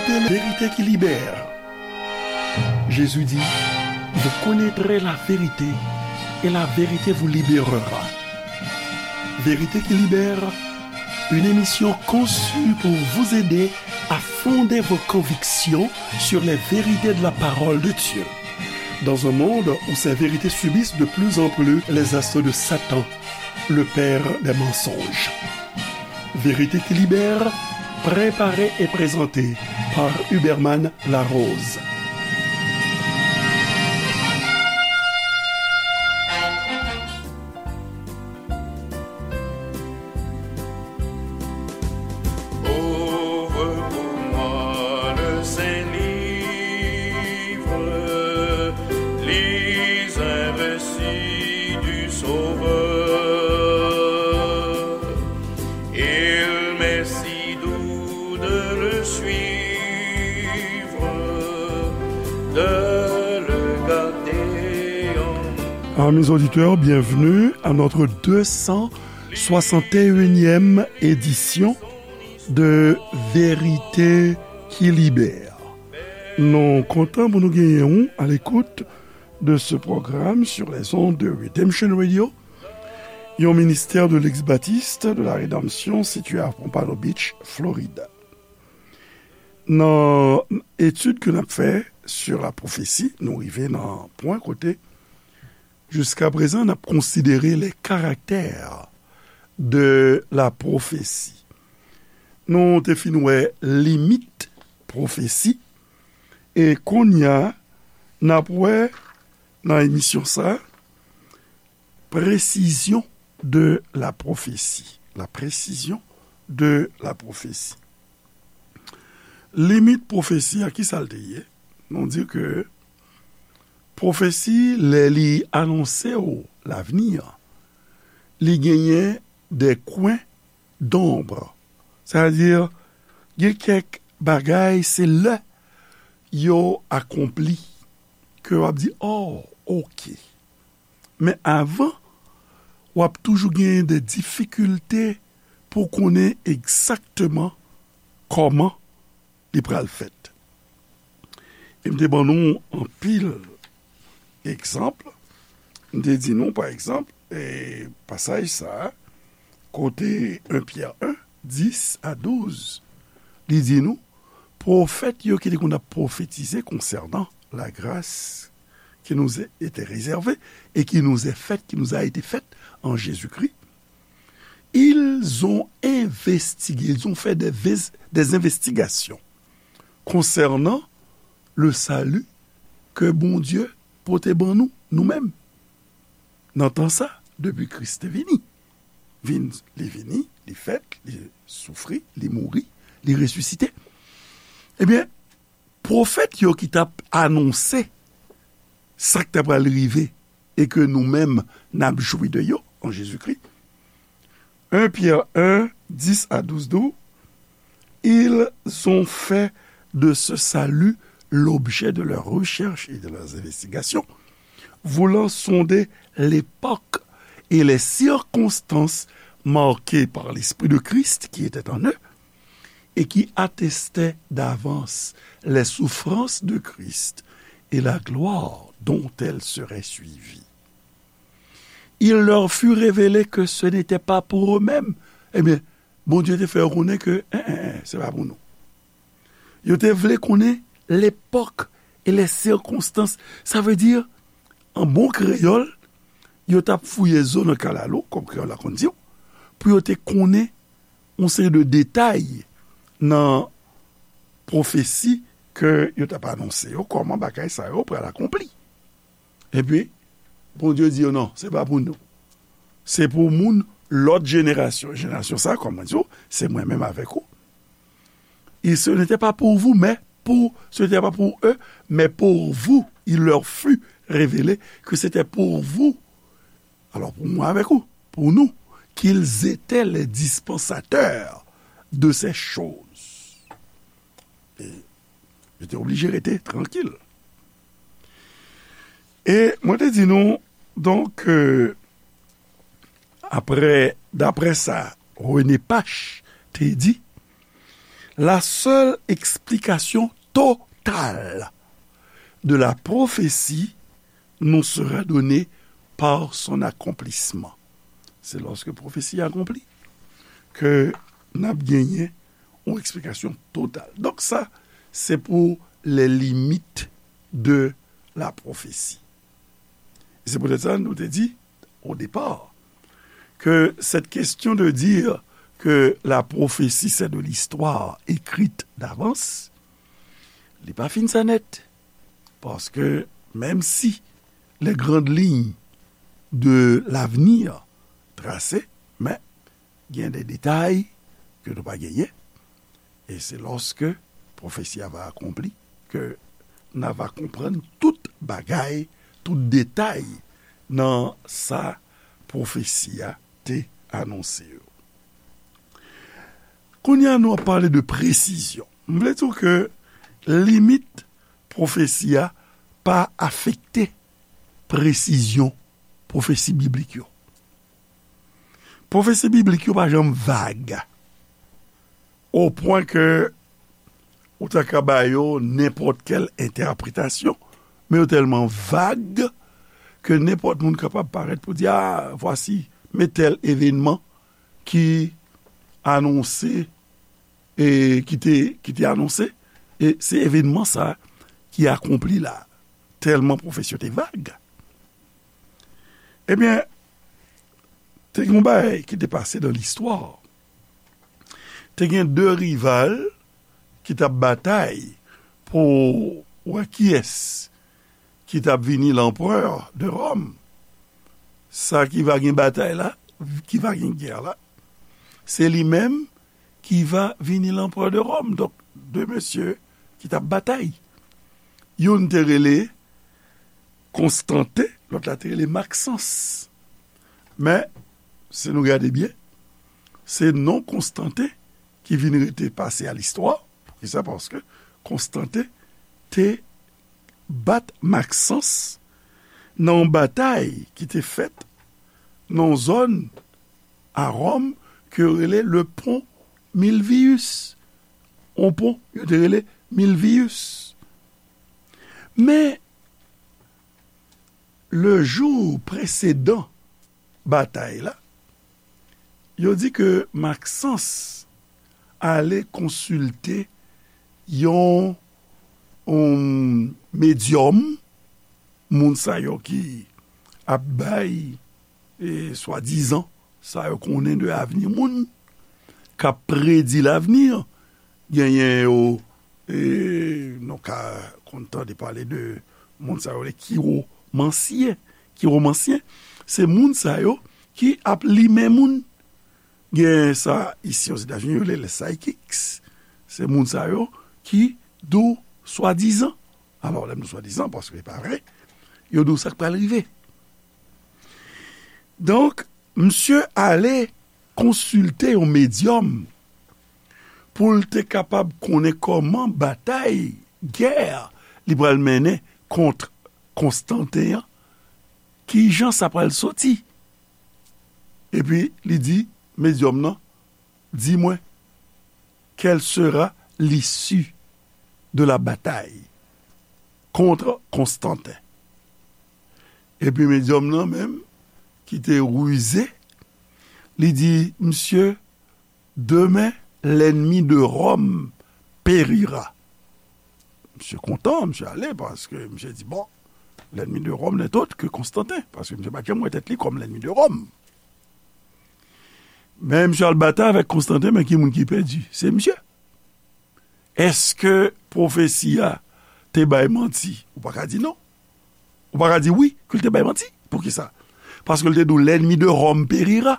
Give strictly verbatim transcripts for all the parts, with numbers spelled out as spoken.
Vérité qui libère. Jésus dit, vous connaîtrez la vérité et la vérité vous libérera. Vérité qui libère, une émission conçue pour vous aider à fonder vos convictions sur les vérités de la parole de Dieu. Dans un monde où ces vérités subissent de plus en plus les assauts de Satan, le père des mensonges. Vérité qui libère, préparée et présentée par Huberman Larose. Ouvre pour moi le Saint-Livre, lis un récit du Sauveur. Il m'est si doux de le suivre, de le garder en... Amis auditeurs, bienvenue à notre deux cent soixante et unième édition de Vérité qui Libère. Nou kontan pou nou genyen w à l'écoute de ce programme sur les ondes de Redemption Radio, yon ministère de l'ex-baptiste de la Rédemption situé à Pompano Beach, Florida. Nan etid ke n ap fè sur la prophétie, nou rive nan pwen kote, jiska prezan, n ap konsidere les caractères de la prophétie. Nou te fin wè limit pwofesi, e kounye a, n ap wè nan emisyon sa, précision de la prophétie. La précision de la prophétie. Limit pwofesi a, ki sa l te ye? Nou di ke pwofesi, lè li anonse w lavni an, li genyen des coins d'ombre. Sètadi, gen kèk bagay, se lè yo akonpli ke w ap di, oh, ok. Men avan, w ap toujou genyen de difikilte pou konnen egzakteman kòman li pral fèt. E m te ban nou anpil egzanp. M te di nou, pa egzanp, e pasaj sa a, kote un Pyè en, dis a douz, li di nou, pwofèt yo ki te konn ap pwofetize konsènan la grâce qui nous était réservée et qui nous est faite, qui nous a été faite en Jésus-Christ, ils ont investigué, ils ont fait des, ves- des investigations concernant le salut ke Bondye pote ban nou, nou menm. Nan tan sa, depi Kris te vini, vin, li vini, li fèt, li soufri, li mouri, li resisite. Ebyen, pwofèt yo ki t ap anonse sa k t ap pral rive e ke nou menm n ap jwi de yo an Jezikri. Un Pyè en, dis a douz di w, ils ont fait de ce salut l'objet de leurs recherches et de leurs investigations, voulant sonder l'époque et les circonstances marquées par l'Esprit de Christ qui était en eux et qui attestaient d'avance les souffrances de Christ et la gloire dont elles seraient suivies. Il leur fut révélé que ce n'était pas pour eux-mêmes. Ebyen, Bondye te fè yo konnen ke, en, en, en, se pa pou nou. Yo te vle konnen l'époque et les circonstances. Sa vle di, an bon kreyòl, yo t ap fouye zo nan kalalou, kòm kreyòl la konn di w, pou yo te konnen yon seri de detay nan pwofesi ke yo t ap anonse yo, kòman bagay sa yo pral akonpli. Epi, Bondye di yo, non, se pa pou nou. Se pou moun lòt jenerasyon. Jenerasyon sa, kòm mwen di w, se mwen menm avèk ou. Et ce n'était pas pour vous, mais pour, ce n'était pas pour eux, mais pour vous, il leur fut révélé que c'était pour vous. Alors, pour moi avec vous, pour nous, qu'ils étaient les dispensateurs de ces choses. E yo te oblije rete trankil. E mwen te di nou, donk, euh, apre, daprè sa René Pache te di, La seule explication totale de la prophétie nous sera donnée par son accomplissement. Se lòske pwofesi a akonpli ke n ap genyen yon eksplikasyon total. Donk sa, se pou les limites de la prophétie. E se poutèt sa nou te di, au départ, que cette question de dire que la prophétie c'est de l'histoire écrite d'avance, li pa fin sa nèt. Paske menm si les grandes lignes de l'avenir trase, men gen de detay ke nou pa genyen. E se lòske pwofesi a va akonpli ke n a va konprann tout bagay, tout detay nan sa pwofesi a te anonse yo. Kounye a nou ap pale de presizyon. M vle di w ke limit pwofesi a pa afekte presizyon pwofesi biblik yo. Pwofesi biblik yo pa janm vag, o pwen ke ou ta ka ba yo nenpòt kèl entèpretasyon, men yo tèlman vag ke nenpòt moun kapab parèt pou di, a, vwasi, men tèl evenman ki anonse, e ki te, ki te anonse, e se evenman sa ki akonpli la, tèlman pwofesi yo te vag. Ebyen, te gen yon bagay ki te pase nan listwa. Te gen de rival ki t ap batay pou wè kiyès ki t ap vini lanperè de Ròm. Sa ki va gen batay la, ki va gen gè la, se li menm ki va vini lanperè de Ròm. Donk, de mesye ki t ap batay. Youn te rele Konstanten, lòt la te rele Maksans. Men, si nou gade byen, se non Konstanten ki vin rete pase a listwa. Poukisa? Paske Konstanten te bat Maksans nan yon batay ki te fèt nan yon zòn a Ròm ke yo rele le Pont Milvius. Yon pon, yo te rele Milvius. Men, le jou presedan batay la, yo di ke Maksans ale konsilte yon, yon medyòm, moun sa yo ki ap bay, e, swadizan, sa yo konnen de avni moun, k ap predi lavni, genyen yo, e, nou ka konn tande pale de moun sa yo, le kiwomansyen. Kiwomansyen, se moun sa yo ki ap limen moun. Gen sa isi Ozetazini, yo rele les psychics. Se moun sa yo ki di w swadizan. Alò, lè m di w swadizan, paske se pa vre, yo di w sa k pral rive. Donk, misye ale konsilte yon medyòm pou l te kapab konnen kòman batay, gè, li pral mennen kont Konstanten an, kijan sa pral soti. Epi, li di medyòm nan, di mwen, quelle sera l'issue de la bataille contre Constantin? Epi medyòm nan menm, ki te rize, li di, misye, demain, l'ennemi de Rome périra. Misye kontan, misye ale, paske misye di, bon, l'ennemi de Rome n'est autre que Constantin, paske misye pa t janm wè tèt li kòm l'ennemi de Rome. Men misye al batay avèk Konstanten, men ki moun ki pèdi? Se misye. Èske pwofesi a te bay manti? Ou pa ka di non. Ou pa ka di wi, ke l te bay manti. Poukisa? Paske l te di w, l'ennemi de Rome périra.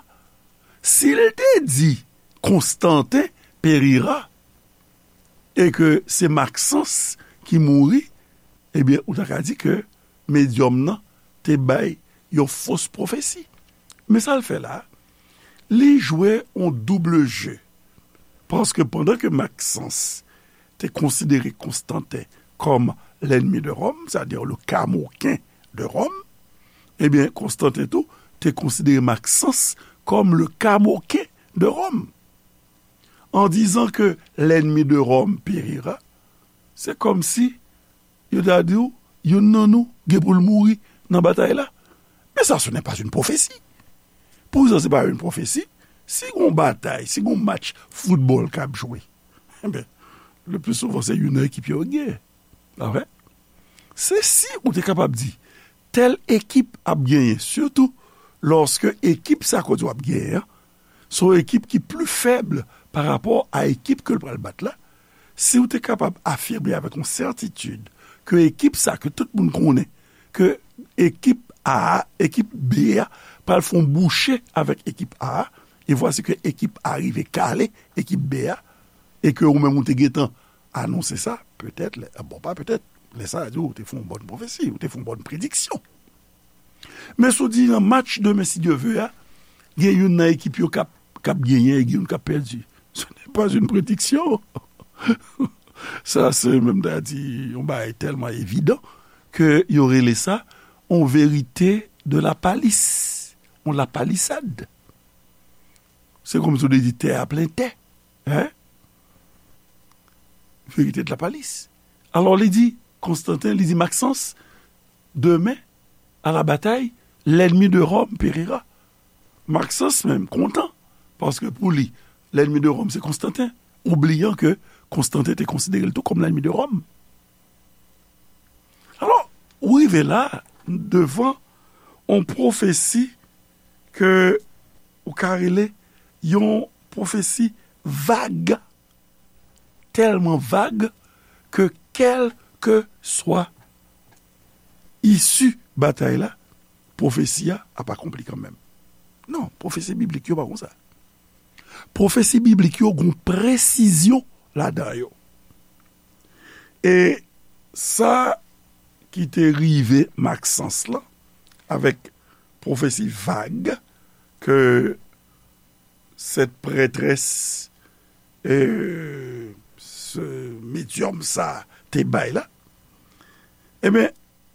Si l te di, Konstanten périra, e ke se Maksans ki mouri, ebyen, ou ta ka di ke medyòm nan te bay yon fos pwofesi. Men sa l fè la, li jwe yon double jeu. Paske pandan ke Maksans te konsidere Konstanten kòm l'ennemi de Rome, c'est-à-dire le Kamoken de Rome, ebyen, Konstanten tou te konsidere Maksans kòm le Kamoken de Rome. en disant que l'ennemi de Rome périra, c'est comme si yo ta di w, youn nan nou gen pou l mouri nan batay la. Mais ça, ce n'est pas une prophétie. Pou sa, se pa yon pwofesi. Si gon batay, si gon match foutbòl k ap jwe, enben, le plus souvent, se youn nan ekip yo k genyen. Pa vre? Se si ou te kapab di, tèl ekip ap genyen, sitou lòske ekip sa kote w ap genyen an, se yon ekip ki pli fèb pa rapò a ekip ke l pral bat la, si w te kapab afime avèk yon sètitid ke ekip sa ke tout moun konnen, ke ekip A a, ekip B a pral fè yon bouche avèk ekip A a, e vwasi ke ekip A rive kale ekip B a, e ke ou menm ou te gentan anonse sa, petèt, lè, bon, pa petèt, lè sa a di ou te fè yon bòn pwofesi, ou te fè yon bòn prediksyon. Men si w di nan match demen, si Dye ve a, gen youn nan ekip yo k ap, k ap genyen e gen youn k ap pèdi. Ce n'est pas une prédiction. Sa, se menm ta di, yon bagay tèlman evidan ke yo rele sa yon verite de la palisse, yon lapalisad. Se kòmsi w te di tè a plen tè. Hein? Verite de la palisse. Alò, li di, Konstantin, li di, Maxence, demain, à la bataille, l'ennemi de Rome périra. Maxence menm kontan, paske pou li, l'ennemi de Rome se Konstantin, oubliant ke Konstantin te konsidere l tou kòm l'ennemi de Rome. Alò, ou rive la, devan yon pwofesi ke ou ka rele yon pwofesi vag, tèlman vag ke kèlkeswa isi batay la, pwofesi a ap akonpli kanmenm. Non, pwofesi biblik yo pa konsa. Pwofesi biblik yo gon presizyon ladan yo. E sa ki te rive Maxence lan, avèk pwofesi vag ke cette prêtresse, euh, ce médium sa te bay la, ebyen,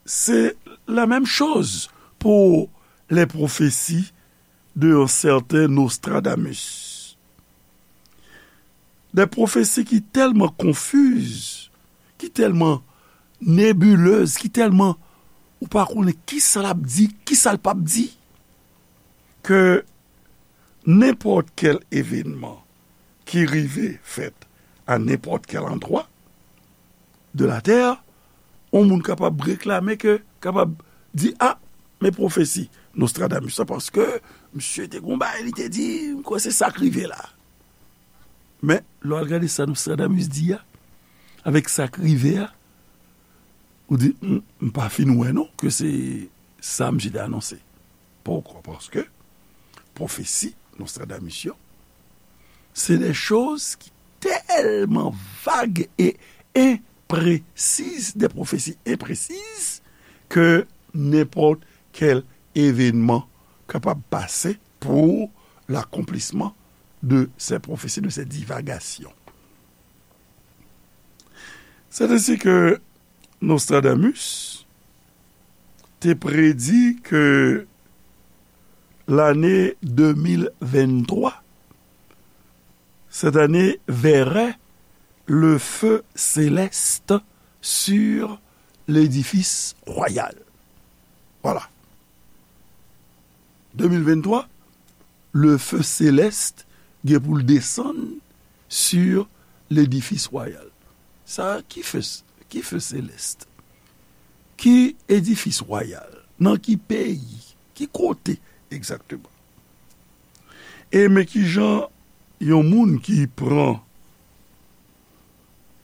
se la menm choz pou les prophéties de un certain Nostradamus. Des prophéties ki tèlman konfiz, ki tèlman nebilez, ki tèlman ou pa konnen kisa l ap di, kisa l p ap di, ke nenpòt kèl evenman ki rive fèt a nenpòt kèl andwa de la tè, yon moun kapab reklame ke, kapab di, a, men pwofesi Nostradamus la, paske misye te gon bagay li te di, m kwè se sa k rive la. Men, lè w al gade sa Nostradamus di a, avèk sa k rive a, ou di, m, m pa fin wè non, ke se sa misye te anonse. Poukwa? Paske pwofesi Nostradamus yo, se de choz ki tèlman vag e enpresiz, de pwofesi enpresiz, ke nenpòt kèl evenman kapab pase pour l'accomplissement de ces prophéties, de ces divagations. C'est ainsi que Nostradamus te predi ke l'année deux mille vingt-trois, cette année verrait le feu céleste sur l'édifice royal. Voilà. Deux mille vingt-trois, le feu céleste gen pou l desann sur l'édifice royal. Sa, ki feu, ki feu céleste? Ki edifis wayal? Nan ki peyi? Ki kote egzakteman? E men kijan yon moun ki pran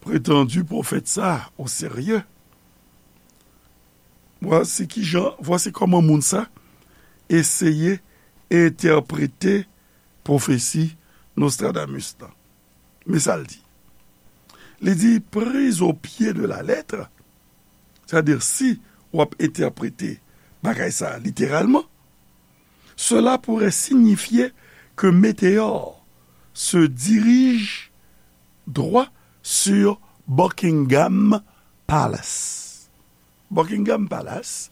pretandi pwofèt sa o serye, vwasi kijan, vwasi kòman moun sa eseye entèprete pwofesi Nostradamus lan. Men sa l di. Li di, prise au pied de la lettre, c'est-à-dire si w ap entèprete bagay sa a literalman, cela pourrait signifier que Météor se dirige droit sur Buckingham Palace. Buckingham Palace,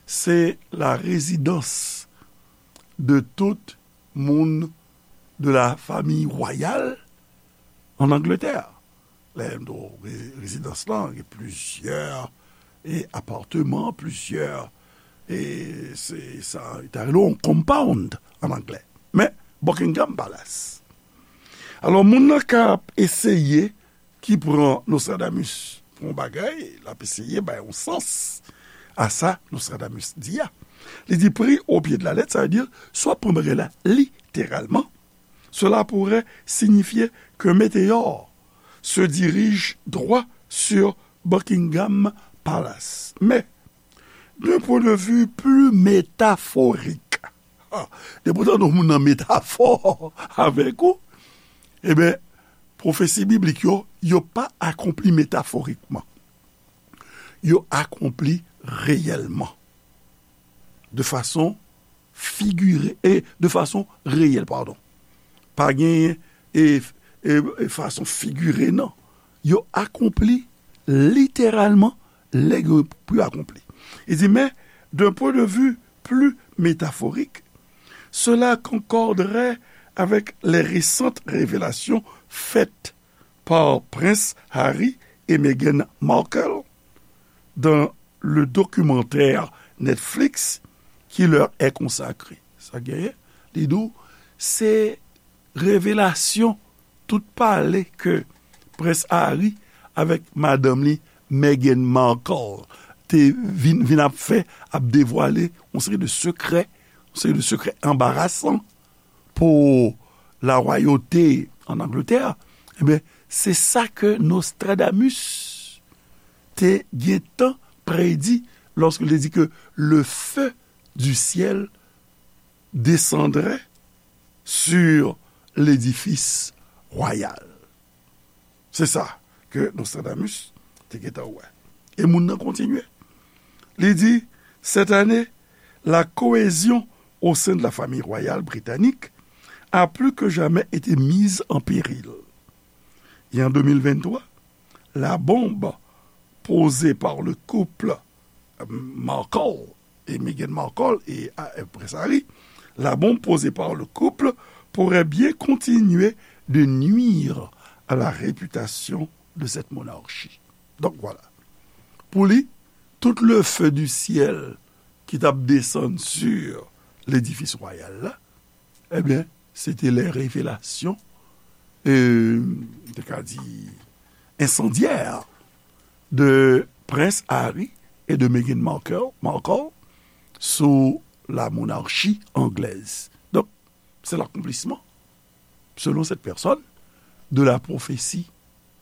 se la rezidans de tout moun de la famiy wayal an Angletè. Lè m di w re- rezidans lan, gen plizyè e apatman, plizyè, e se sa, yo ta rele yon compound an anglè. Men, Buckingham Palace. Alò, moun nan k ap eseye ki pran Nostradamus pou yon bagay, l ap eseye bay yon sans a sa Nostradamus di a. Li di, pris au pied de la lettre, sa vle di, si w ap pran bagay la literalman, cela pourrait signifier qu'un météore se dirige droit sur Buckingham Palace. Mais, d'un point de vue plus métaphorique, ah, depi w tande yon moun nan metafò avèk ou, ebyen, pwofesi biblik yo, yo pa akonpli metaforikman. Yo akonpli reyèlman. De fason figire, e de fason reyèl, padon. Pa gen e, e, e fason figire, non. Yo akonpli literalman lè yo pou akonpli. Il dit, mais d'un point de vue plus métaphorique, cela concorderait avec les récentes révélations faites par Prince Harry et Meghan Markle dans le documentaire Netflix qui leur est consacré. Sa genyen, li di w, se revelasyon, tout pale ke Prens Harry avèk madanm li, Meghan Markle, te vin, vin ap fè, ap devwale yon seri de sekrè, yon seri de sekrè anbarasan pou larwayote an Angletè, ebyen, se sa ke Nostradamus te gentan predi lòske l te di ke le feu du ciel descendrait sur l'édifice royal. Se sa ke Nostradamus te gentan wè. E moun nan kontinye. Li di, cette année, la cohésion au sein de la famille royale britannique a plus que jamais été mise en péril. Et en deux mille vingt-trois, la bombe posée par le couple Markle et Meghan Markle et, euh, Prince Harry, la bombe posée par le couple pourrait bien continuer de nuire à la réputation de cette monarchie. Donc voilà. Pou li, tout le feu du ciel ki t ap desann sur ledifis wayal la, ebyen, se te lè revelasyon, euh, m te ka di, ensandyè de Prince Harry et de Meghan Markle, Markle sous la monarchie anglaise. Donc, c'est l'accomplissement, selon cette personne, de la prophétie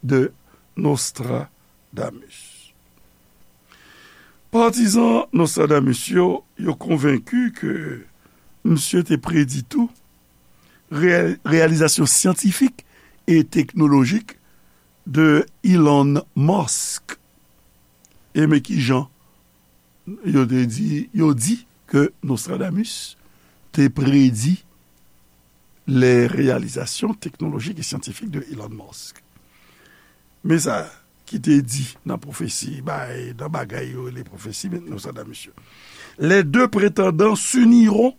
de Nostradamus. Patizan Nostradamus yo, yo konvenki ke misye te predi tou reyal-, reyalizasyon syantifik e teknolojik de Elon Musk. E men kijan yo te di, yo di ke Nostradamus te predi les réalisations technologiques et scientifiques de Elon Musk. Men sa ki te di nan pwofesi, bay, nan bagay yo rele pwofesi, men Nostradamus yo. Les deux prétendants s'uniront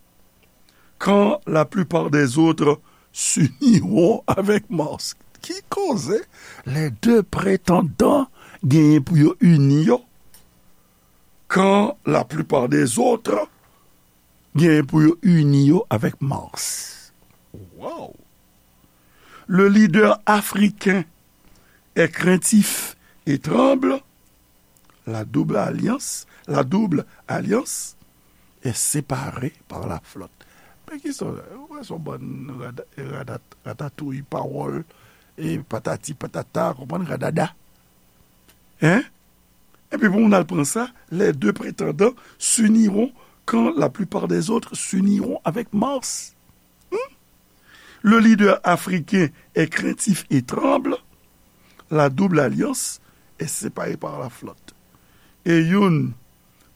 quand la plupart des autres s'uniront avec Musk. Ki koze? Les deux prétendants genyen pou yo ini yo quand la plupart des autres genyen pou yo ini yo avèk Musk. Wow! Le leader africain est craintif et tremble. La double alliance, la double alliance est séparée par la flotte. Men ki sa, ou wè se yon bann rada-, rada-, ratatouy, pawòl, e patati patata, konprann, radada. Hein? Epi pou moun al pran sa, les deux prétendants s'uniront quand la plupart des autres s'uniront avec Musk. Hmm? Le leader africain est craintif et tremble. La double alliance est séparée par la flotte. E youn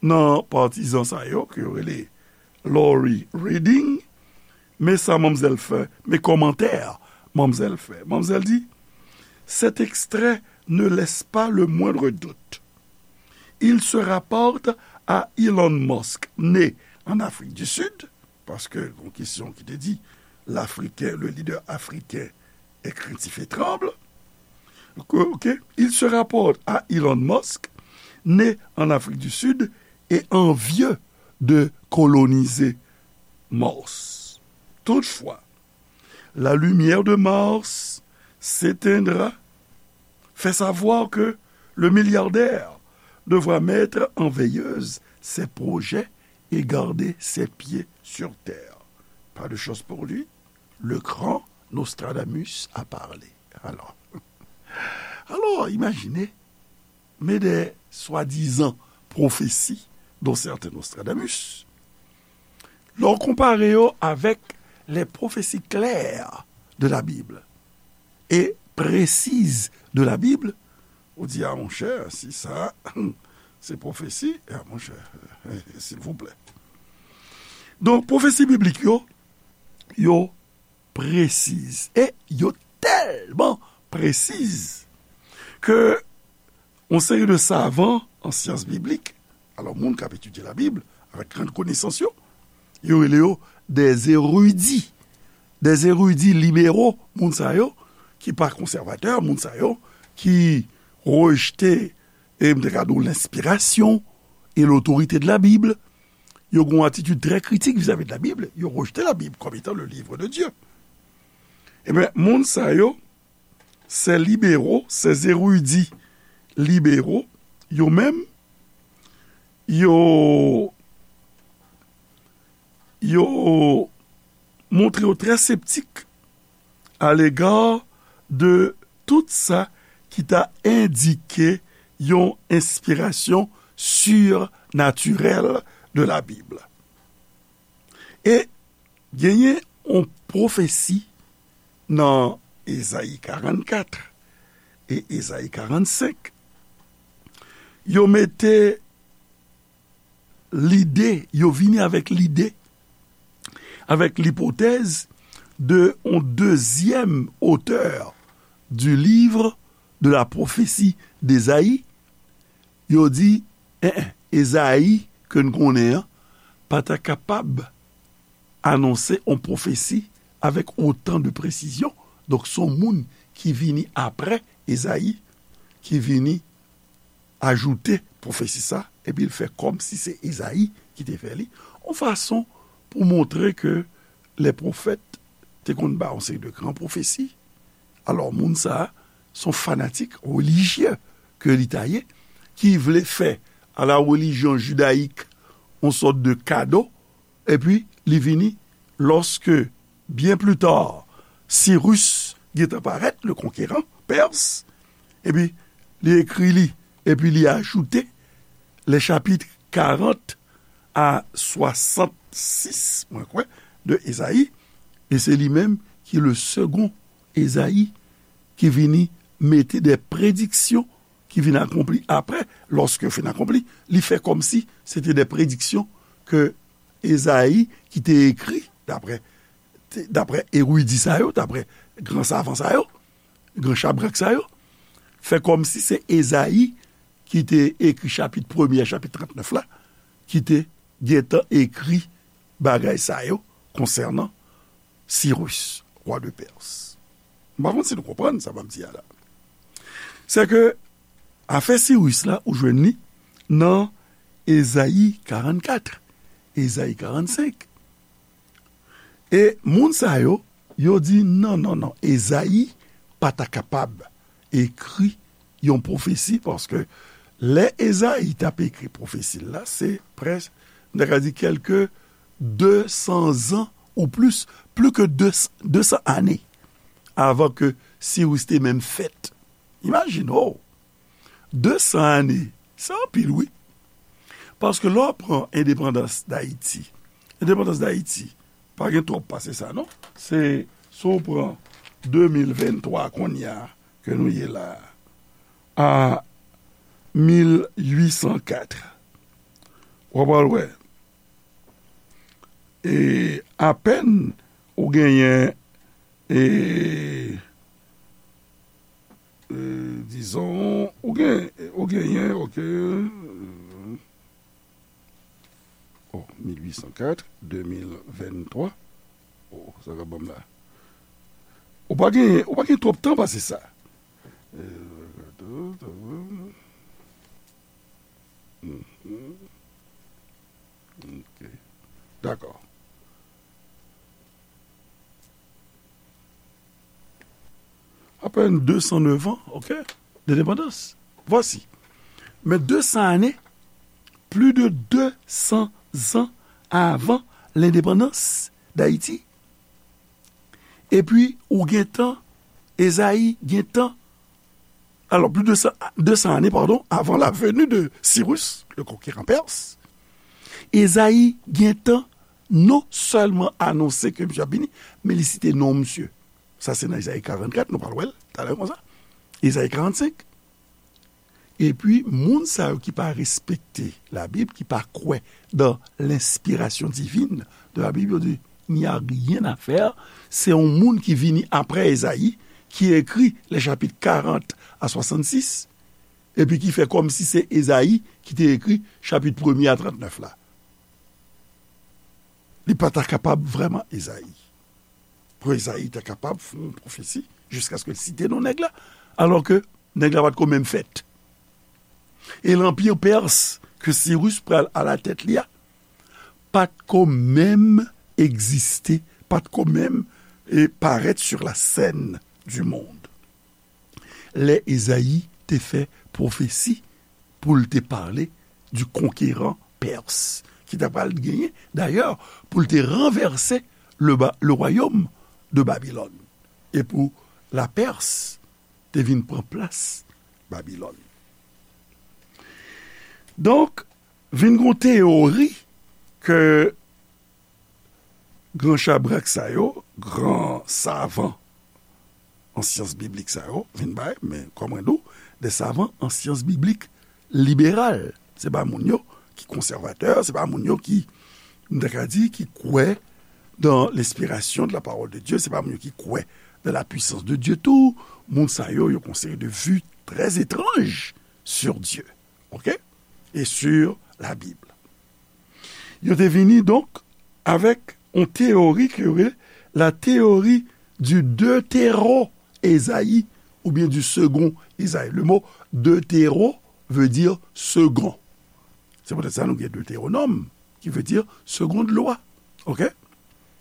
nan patizan sa yo, ke yo rele Lori Reading, men sa manmzèl fè, men kòmantè manmzèl fè. Manmzèl di, cet extrait ne laisse pas le moindre doute. Il se rapporte à Elon Musk, né en Afrique du Sud, paske yon kesyon ki te di, l'Africain, le leader africain est craintif et tremble. Ok, il se rapporte à Elon Musk, né en Afrique du Sud et envieux de coloniser Mars. Toutefois, la lumière de Mars s'éteindra, fait savoir que le milliardaire devra mettre en veilleuse ses projets et garder ses pieds sur terre. Pas de chance pour lui, le grand Nostradamus a parlé. Alors, alors, imaginez, mais des soi-disant prophéties dont certains Nostradamus, lè w konpare yo avèk les prophéties claires de la Bible et précises de la Bible, ou di, a monchè, si sa, se pwofesi, a monchè, silvouplè. Donk, pwofesi biblik yo, yo presiz. E yo tèlman presiz ke yon seri de savan an syans biblik, alò, moun k ap etidye Labib avèk grann konesans yo, yo rele yo des érudits. Des érudits libéraux, moun sa yo ki pa konsèvatè, moun sa yo ki rejte, e m te ka di w, lenspirasyon e lotorite de la Bible. Yo gen yon atitid trè kritik vizavi de la Bible. Yo rejte la Bible comme étant le livre de Dieu. Ebyen, moun sa yo, ces libéraux, ces érudits libéraux, yo menm, yo, yo montre yo trè septik à l'égard de tout sa ki ta endike yon enspirasyon surnaturèl de la Bible. E genyen yon pwofesi nan Ezayi karannkat e Ezayi karannsenk. Yo mete lide, yo vini avèk lide, avèk lipotèz de yon dezyèm otè du livre de la prophétie d'Ésaïe. Yo di, en, en, Ezayi ke n konnen an pa ta kapab anonse yon pwofesi avèk otan de presizyon. Donk, se yon moun ki vini apre Ezayi, ki vini ajoute pwofesi sa, epi l fè kòmsi se Ezayi ki te fè li, yon fason pou montre ke lè pwofèt te konn bay yon seri de gran pwofesi. Alò, moun sa a, se yon fanatik relijye ke li ta ye, ki vle fè à la religion judaïque yon sòt de kado, epi li vini, lorsque, bien plus tard, Cyrus gentan parèt, le conquérant, Pers, epi li ekri li, epi li ajoute les chapitres quarante à soixante-six, mwen kwè, de Ezayi, e se li menm ki le second Ezayi ki vini mete de prediksyon ki vin akonpli apre, lòske yo fin akonpli, li fè kòmsi se te de prediksyon ke Ezayi ki te ekri, daprè, te, daprè eridi sa yo, daprè gran savan sa yo, gran chabrak sa yo, fè kòmsi se Ezayi ki te ekri chapit premye a chapit trannèf la, ki te gentan ekri bagay sa yo konsènan Sirus, wa de Pès. M pa konn si nou konprann sa m ap di a la. Se ke afè Sirus la, ou jwenn li nan Ezayi karannkat, Ezayi karannsenk. E moun sa yo, yo di, non, non, non, Ezayi pa ta kapab ekri yon pwofesi, paske lè Ezayi t ap ekri pwofesi l la, se près, m ta ka di, kèlke de san zan ou plis, plis ke de san ane avan ke Sirus te menm fèt. Imajine w, de san ane, se anpil, wi. Paske lè w pran endepandans Dayiti, endepandans Dayiti, pa gen twòp pase sa, non. Se, si w pran de mil venntwa kounye a, ke nou ye la a, a mil uit san kat, w ap al wè, e apèn ou genyen, e, e, dizon, ou gen, ou genyen, ok, oh, mil uit san kat, de mil venntwa. Oh, sa k ap ban m la. Ou pa gen, ou pa gen twòp tan pase sa. Mhm. Ok. Dakò. Apèn de san nèf an, ok, d'indépendance. Voici. Men de san ane, plus de deux cents ans avant l'indépendance d'Haïti. Epi, ou gentan, Ezayi gentan, alors, plus de cent, deux cents années, pardon, avant la venue de Cyrus, le conquérant perse, Ezayi gentan non sèlman anonse ke misye ap vini, men li site non misye. Sa se nan Ezayi karannkat, nou pral wè l talè konsa. Ezayi karannsenk. Epi, moun sa yo ki pa respekte Labib, ki pa kwè dans l'inspiration divine de la Bible, yo di, il n'y a rien à faire. Se yon moun ki vini apre Ezayi, ki ekri les chapitres quarante à soixante-six, epi ki fè kòmsi se Ezayi ki te ekri chapit premye a trannèf la. Li pa ta kapab vrèman Ezayi. Pou Ezayi ta kapab fè yon pwofesi jiskaske l site non nèg la, alò ke nèg la pa t ko menm fèt. E lanpi pès ke Sirus pral alatèt li a, pa t ko menm egziste, pa t ko menm, e, parèt sur la scène du monde. Lè Ezayi te fè pwofesi pou l te pale du conquérant perse, ki ta pral genyen, dayè, pou l te ranvèse le, ba- le royaume de Babylone. E pou la Pès te vin pran plas Babilòn. Donk, vin gon teyori ke gran chabrak sa yo, gran savan an syans biblik sa yo, vin bay, men kòm mwen di w, de savan an syans biblik liberal. Se pa moun yo ki konsèvatè, se pa moun yo ki, m ta ka di, ki kwè dans l'inspiration de la parole de Dieu, se pa moun yo ki kwè dans la puissance de Dieu tou. Moun sa yo, yo gon seri de vues très étranges sur Dieu, ok? Et sur la Bible. Yo te vini, donk, avèk yon teyori ke yo rele la théorie du deutéro-Ésaïe, oubyen du second Ésaïe. Le mot deutéro veut dire second. Se poutèt sa nou gen Deutéronome, ki vle di seconde loi. Ok?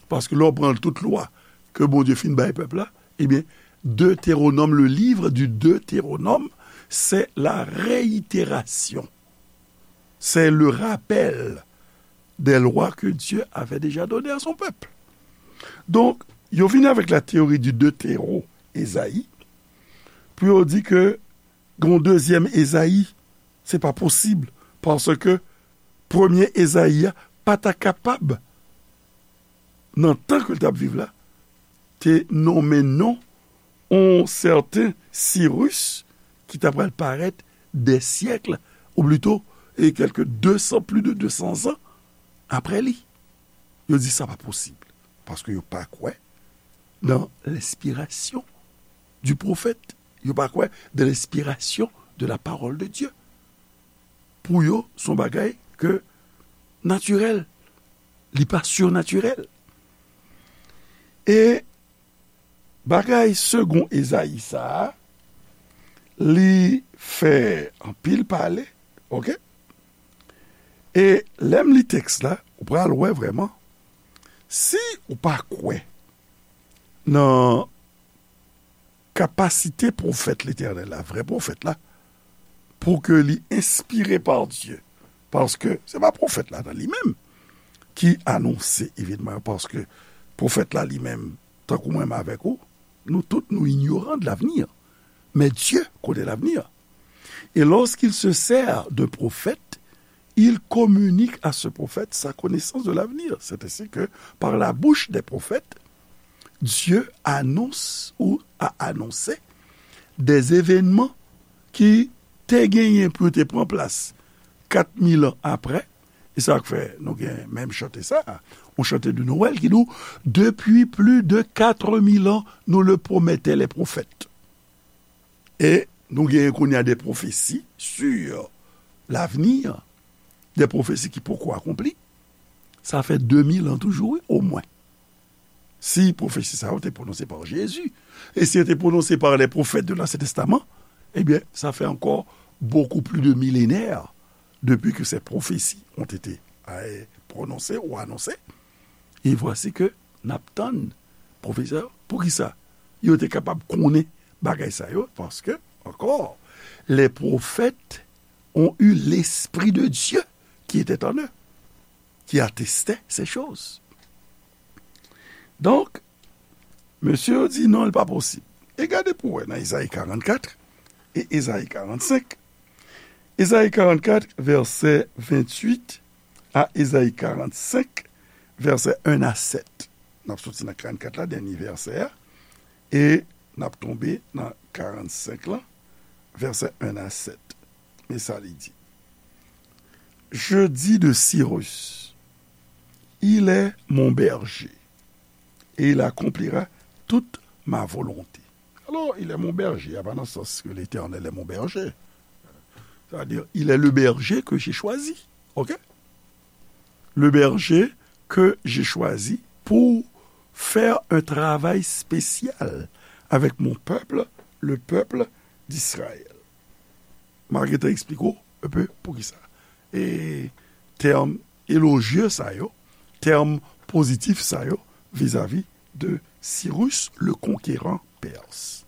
Paske lè w pran tout lwa ke Bondye fin bay pèp la, ebyen, Deutéronome, le livre du Deutéronome, c'est la réitération. C'est le rappel des lois que Dieu avait déjà données à son peuple. Donk, yo vini avèk la théorie du deutéro-Ésaïe pou yo di ke gon dezyèm Ezayi, se pa posib, paske premye Ezayi a pa ta kapab, nan tan ke l t ap viv la, te nonmen non yon sèten Sirus ki ta pral parèt des siècles, ou plito, e kèlke de san, plus de deux cents ans apre li. Yo di sa pa posib, paske yo pa kwè dans l'inspiration du prophète. Yo pa kwè dans l'inspiration de la parole de Dieu. Pou yo, se yon bagay ke natirèl, li pa surnatirèl. E bagay second Esaïe sa a, li fè anpil pale, ok? E lè m li tèks la, ou pral wè vrèman, si ou pa kwè nan kapasite pwofèt Letènèl la, vrè pwofèt la, pou ke li enspire pa Dye. Paske se pa pwofèt la nan li menm ki anonse evenman yo, paske pwofèt la li menm, tankou mwen menm avèk ou, nou tout nou ignorant de l'avenir. Mais Dieu connaît l'avenir. Et lorsqu'il se sert d'un prophète, il communique à ce prophète sa connaissance de l'avenir. C'est ainsi que, par la bouche des prophètes, Dieu annonce ou a annoncé des événements ki te genyen pou yo te pran plas kat mil an apre. E sa k fè nou gen menm chante sa, yon chante de Noël ki di w, depuis plus de quatre mille ans, nous le promettaient les prophètes. E nou genyen kounye a de pwofesi sur l'avenir, de pwofesi ki poko akonpli. Sa fè de mil an toujou, wi, omwen. Si pwofesi sa yo te pwononse pa Jezi, e si yo te pwononse pa les prophètes de l'Ancien Testament, ebyen, sa fè ankò beaucoup plus de millénaires depuis que ces prophéties ont été, euh, prononcées ou annoncées. E vwasi ke n ap tann pwofesi sa yo. Poukisa yo te kapab konnen bagay sa yo? Paske, encore, les prophètes ont eu l'Esprit de Dieu qui était en eux, qui attestait ces choses. Donk, mesye yo di non, li pa posib. E gade pou wè nan Ezayi karannkat e Ezayi karannsenk. Ezayi karannkat, vèsè venntuit, a Ezayi karannsenk, vèsè en a sèt. N ap soti nan karannkat la, dènye vèsè a, e n ap tonbe nan karannsenk lan, vèsè en a sèt. Men sa li di: Je dis de Cyrus, il est mon berger, et il accomplira toute ma volonté. Alors, il est mon berger, a pa nan sans que l'Éternel est mon berger. C'est-à-dire, il est le berger que j'ai choisi. OK? Le berger que j'ai choisi pour faire un travail spécial avec mon peuple, le peuple d'Israël. M a gentan eksplike w un peu poukisa. E tèm elojye sa yo, tèm pozitif sa yo vizavi de Cyrus le conquérant perse.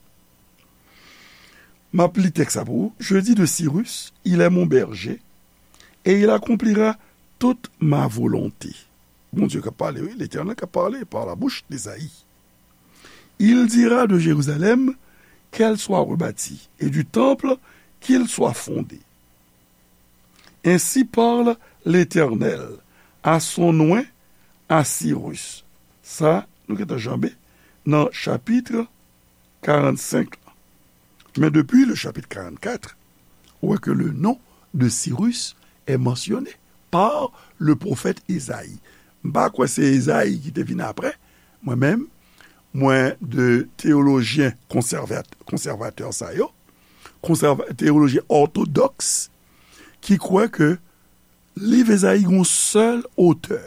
M ap li tèks sa pou ou. Je dis de Cyrus, il est mon berger, et il accomplira toute ma volonté. Bondye k ap pale, wi, Letènèl k ap pale par la bouche d'Esaïe. Il dira de Jérusalem qu'elle soit rebâtie, et du temple qu'il soit fondé. Ainsi parle l'Éternel à son oint, à Cyrus. Sa, nou gentan janbe nan chapit karannsenk la. Men depi le chapitre quarante-quatre, ou wè ke le nom de Cyrus est mentionné par le prophète Esaïe. M pa kwè se Ezayi ki te vin apre. Mwen menm, mwen de teyolojyen konsèvat-, konsèvatè sa yo, konsèva-, teyolojyen òtodòks, ki kwè ke liv Ezayi gon sèl otè,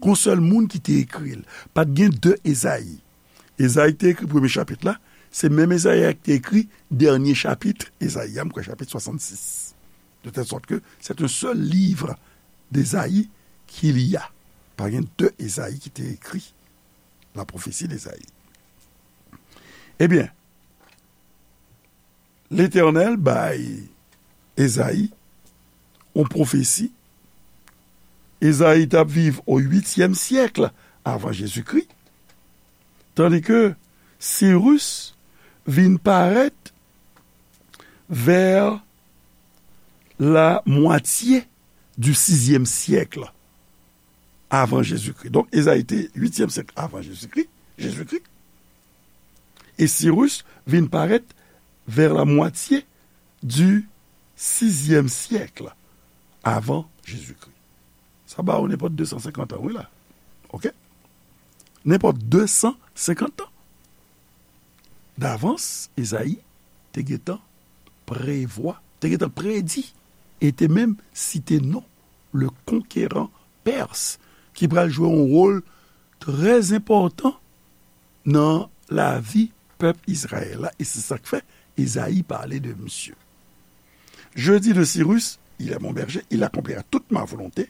gon sèl moun ki te ekri l. Pa t gen de Ezayi. Ezayi ki te ekri premye chapit la, se menm Ezayi a ki te ekri dènye chapit Ezayi a, m kwè chapit swasannsis. De telle sorte que c'est un seul livre d'Esaïe qu'il y a. Pa gen de Ezayi ki te ekri la prophétie d'Esaïe. Ebyen, Letènèl bay Ezayi yon pwofesi. Ezayi t ap viv o uityèm syèk avan Jezikri, tandike Sirus vin parèt vers la moitié du sizyèm syèk avan Jezikri. Donk, Ezayi te uityèm syèk avan Jezikri, Jezikri. E Sirus vin parèt vers la moitié du sizyèm syèk avan Jezikri. Sa ba ou nenpòt de san senkant an, wi la. Oke? Nenpòt de san senkant an. Davans, Ezayi te gentan prevwa, te gentan predi, e te menm site non le conquérant perse, ki pral jwe yon wòl trè enpòtan nan lavi pèp Izrayèl la, e se sa k fè Ezayi pale de misye. Je dis de Cyrus, il est mon berger, il accomplira toute ma volonté.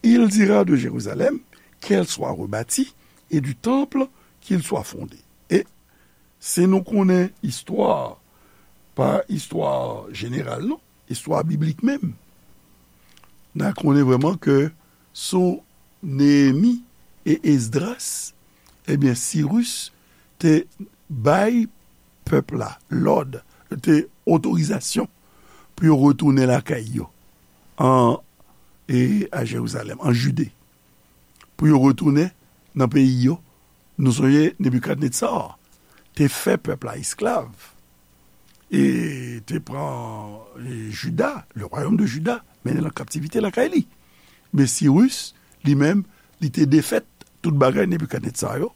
Il dira de Jérusalem qu'elle soit rebâtie et du temple qu'il soit fondé. E si nou konnen istwa, pa istwa jeneral non, istwa biblik menm, n a konnen vrèman ke sou Neyemi e Esdras, ebyen, Sirus te bay pèp la lòd, te otorizasyon pou yo retounen lakay yo, an, e a Jerizalèm, an Jide, pou yo retounen nan peyi yo. Nou sonje Nebikadnetsa te fè pèp la esklav, e te pran, e, Jida, le royaume de Juda, mennen l an kaptivite lakay li. Men Sirus, li menm, li te defèt tout bagay Nebikadnetsa yo,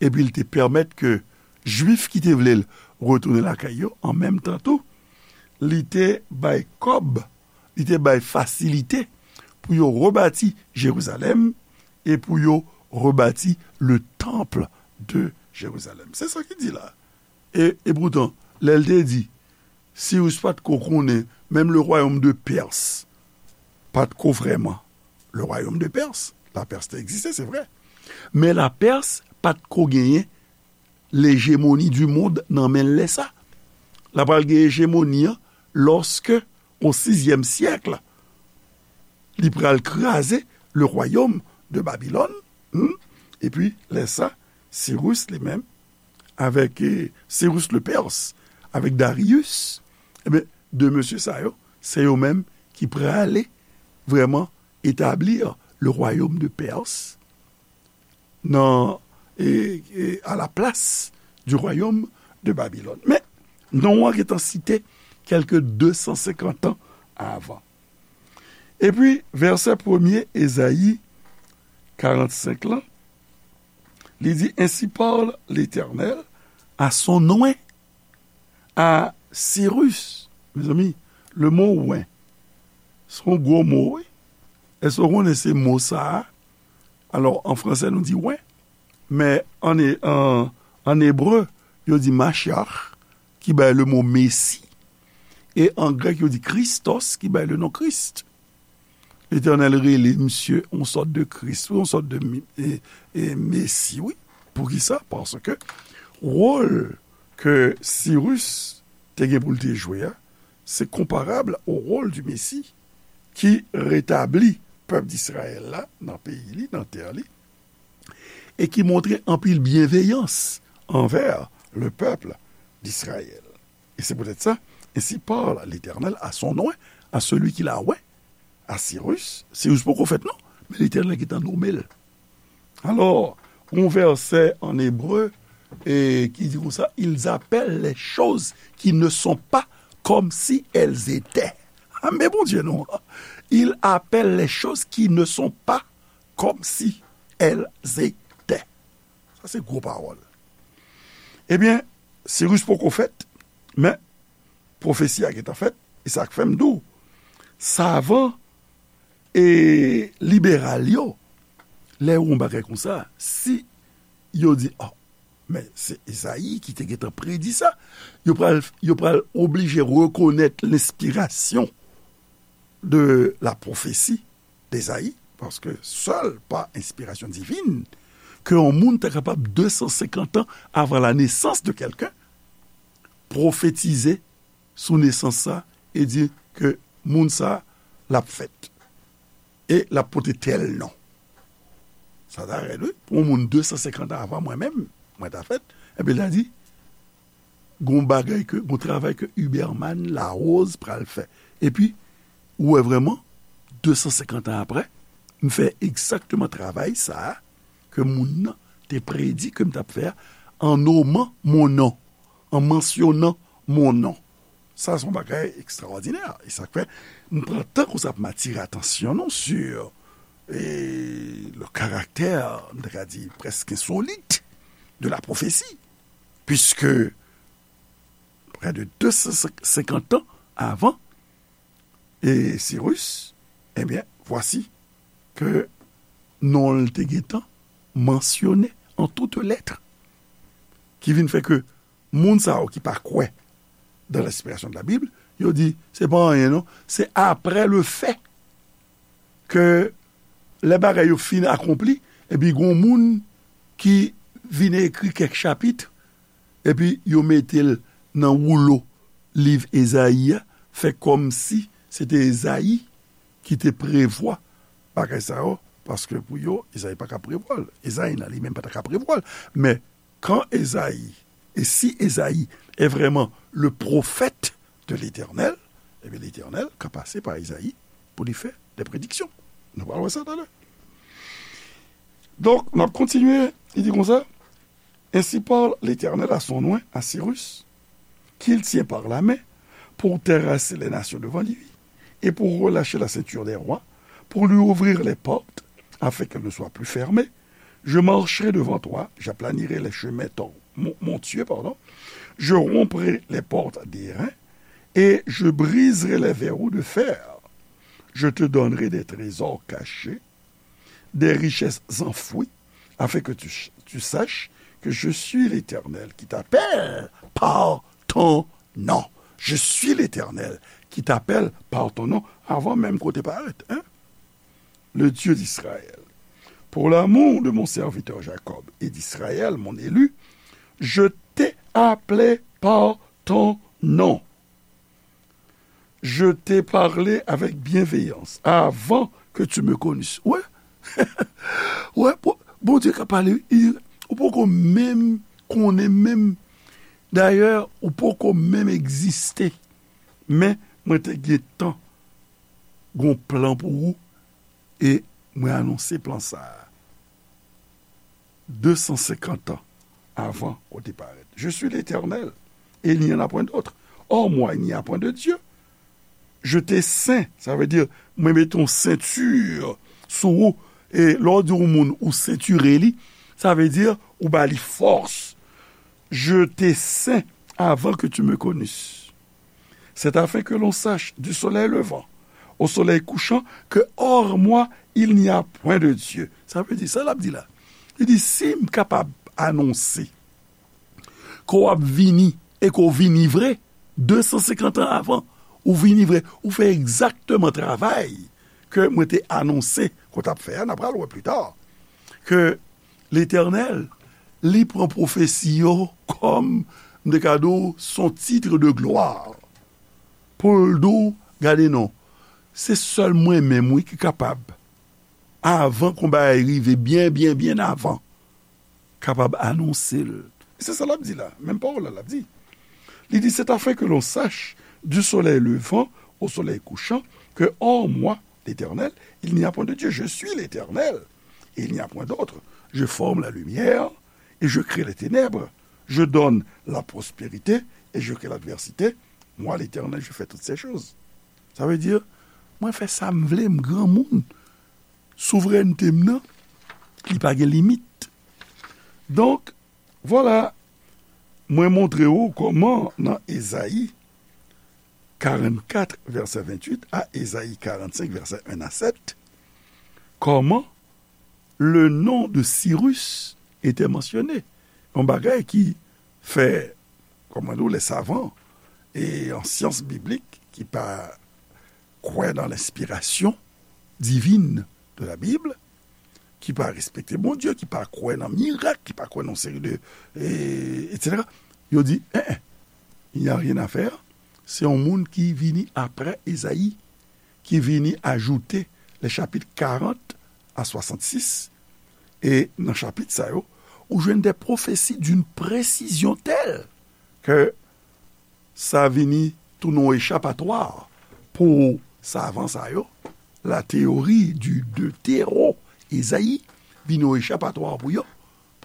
epi li te pèmèt ke Jwif ki te vle l retounen lakay yo, an menm tan tou, li te bay kòb, li te bay fasilite pou yo rebati Jerizalèm e pou yo rebati le temple de Jérusalem. Se sa ki di la. E, e poutan, lè l te di, Sirus pa t ko konnen, menm le royaume de Perse pa t ko vrèman le royaume de Perse. La Perse te egziste, se vre. Men la Perse pa t ko genyen l'hégémonie du monde nan men l lè sa. L ap pral gen ejemoni an lòske, o sizyèm syèk, li pral kraze le royaume de Babylone. Hmm? Epi, lè sa, Sirus li menm, avèk, eh, Sirus le Perse, avèk Darius, ebyen, de mesye sa yo, se yo menm ki prale vrèman etablir le royaume de Perse nan, e, e, à la place du royaume de Babylone. Men, non an gentan site kèlke de san senkant an avan. Epi, vèsè premye Ezayi karannsenk lan, li di, Ainsi parle l'Éternel à son oint, à Cyrus. Mezanmi, le mo oint, se yon gwo mo, wi. Èske w konnen se mo sa a? Alò, an fransè, nou di oint, men an, e- an, an ebre, yo di Mashiach, ki bay le mo Mesi, e an grèk, yo di Christos, ki bay le non Kris. Letènèl rele misye yon sòt de Kris, yon sòt de mi- e- e Mesi, wi. Poukisa? Paske wòl ke Sirus te gen pou l te jwe a, se konparab o wòl di Mesi ki retabli pèp Disrayèl la nan peyi li, nan tè li, e ki montre anpil byenveyans anvè le pèp d'Israël. E se poutèt sa, ainsi parle l'Éternel à son oint, à celui qu'il a oint, à Cyrus. Sirus poko fèt non, men Letènèl gentan nonmen l. Alò, yon vèsè an ebre, e, ki di konsa, ils appellent les choses qui ne sont pas comme si elles étaient. Ah, men Bondye non. Ils appellent les choses qui ne sont pas comme si elles étaient. Sa se gwo pawòl. Ebyen, Sirus poko fèt, men pwofesi a gentan fèt, e sa k fè m di w, savan e liberal yo, lè yo wè yon bagay konsa, si yo di, oh, men se Ezayi ki te gentan predi sa, yo pral, yo pral oblije rekonèt lenspirasyon de la pwofesi d'Ezayi, paske sèl pa enspirasyon divin ke yon moun ta kapab de san senkant an avan la nesans de kèlken pwofetize sou nesans sa e di ke moun sa l ap fèt e l ap pote tèl non. Sa ta rèd, wi. Pou yon moun de san senkant an avan mwen menm, mwen ta fèt, epi l ta di, gon bagay ke, gon travay ke Huberman Larose pral fè. Epi, ou wè vrèman, de san senkant an apre, m fè egzakteman travay sa a ke moun nan te predi ke m t ap fè a, an noman mon non, an mansyonan mon non. Sa se yon bagay ekstraòdinè. E sa k fè, m pran tan konsa pou m atire atansyon nou sur, e, le caractère, m ta ka di, presque insolite de la prophétie. Puisque près de deux cent cinquante ans avant, e, Sirus, ebyen, vwasi ke non l te gentan mansyone an tout lèt, ki vin fè ke moun sa yo ki pa kwè dans l'inspiration de la Bible, yo di, se pa anyen non, se après le fait ke lè bagay yo fin akonpli, epi gon moun ki vin ekri kèk chapit, epi yo mete l nan woulo liv Ezayi a, fè kòmsi se te Ezayi ki te prevwa bagay sa yo, paske pou yo, Ezayi pa ka prevwa l. Ezayi nan li menm pa ta ka prevwa l. Men, quand Ezayi, et si Ezayi est vraiment le prophète de l'Éternel, ebyen, Letènèl ka pase pa Ezayi pou li fè de prediksyon. Nou pral wè sa talè. Donk, n ap kontinye, li di konsa, Ainsi parle l'Éternel à son oint, à Cyrus, qu'il tient par la main pour terrasser les nations devant lui, et pour relâcher la ceinture des rois, pour lui ouvrir les portes, afin qu'elles ne soient plus fermées. Je marcherai devant toi, j'aplanirai les chemins tor- mon- montueux, pardon. Je romprai les portes d'airain, et je briserai les verrous de fer. Je te donnerai des trésors cachés, des richesses enfouies, afin que tu, tu saches que je suis l'Éternel qui t'appelle par ton nom. Je suis l'Éternel qui t'appelle par ton nom. Avan menm ke w te parèt, hein? Le Dieu d'Israël. Pour l'amour de mon serviteur Jacob et d'Israël, mon élu, je t'ai appelé par ton nom. Je t'ai parlé avec bienveillance avant que tu me connisses. Wè, wè, Bondye ka pale, ou poko menm konnen menm. Dayè, ou poko menm egziste. Men, mwen te gentan gon plan pou ou, e mwen anonse plan sa a. De san senkant an avan ke w te parèt. Je suis l'Éternel, et il n'y en a point d'autre. Hors moi, il n'y a point de Dieu. Je te sen, sa vle di, mwen mete yon senti sou ou. E lè w di yon moun ou sentire li, sa vle di ou ba li fòs. Je te sen avant que tu me connisses. C'est afin que l'on sache du soleil levant au soleil couchant que hors moi il n'y a point de Dieu. Sa vle di, sa l ap di la. Li di, si m kapab anonse ke w ap vini e ke w vini vre, de san senkant an avan, ou vini vre, ou fè egzakteman travay ke mwen te anonse ke w t ap fè a, n a pral wè pli ta, ke Letènèl, li pran pwofesi yo kòm, m te ka di w, son titre de gloire. Pou l di w, gade non, se sèl mwen menm, wi, ki kapab, avan ke yon bagay rive, byen, byen, byen avan, kapab anonse l. E se sa l ap di la, menm pawòl la l ap di. Li di, c'est afin que l'on sache du soleil levant au soleil couchant que hors moi, l'Éternel, il n'y a point de Dieu. Je suis l'Éternel, et il n'y a point d'autre. Je forme la lumière et je crée les ténèbres. Je donne la prospérité et je crée l'adversité. Moi, l'Éternel, je fais toutes ces choses. Sa vle di, mwen fè sa m vle, m granmoun. Souvrènte m nan, li pa gen limit. Donk, vwala, mwen montre w kòman nan Ezayi karannkat, vèsè venntuit, a Ezayi karannsenk, vèsè en a sèt, comment le nom de Cyrus était mentionné. Yon bagay ki fè, kòman di w, les savants e an syans biblik ki pa kwè nan lenspirasyon divin de la Bible, ki pa respekte Bondye, ki pa kwè nan mirak, ki pa kwè nan seri de, e, etsetera. Yo di, en, en, il n'y a rien à faire. Se yon moun ki vini apre Ezayi, ki vini ajoute les chapitres quarante à soixante-six. E nan chapit sa yo, ou jwenn des prophéties d'une précision telle que sa vini tounen yon echapatwa pou savan sa yo. La théorie du deutéro-Esaïe vini yon echapatwa pou yo,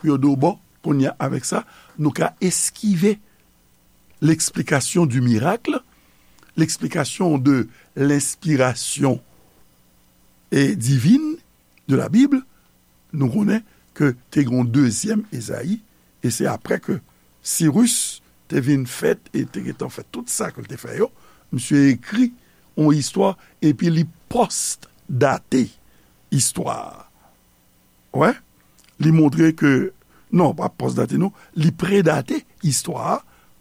pou yo di w, bon, kounye a, avèk sa, nou ka eskive l'explication du miracle, l'explication de l'inspiration, e, divine de la Bible, nou konnen ke te gen yon dezyèm Ezayi, e se apre ke Sirus te vin fèt e te gentan fè tout sa ke l te fè yo, misye ekri yon istwa, epi li pòs-date istwa a. Wè, li montre ke, non, pa pòs-date non, li predate istwa a,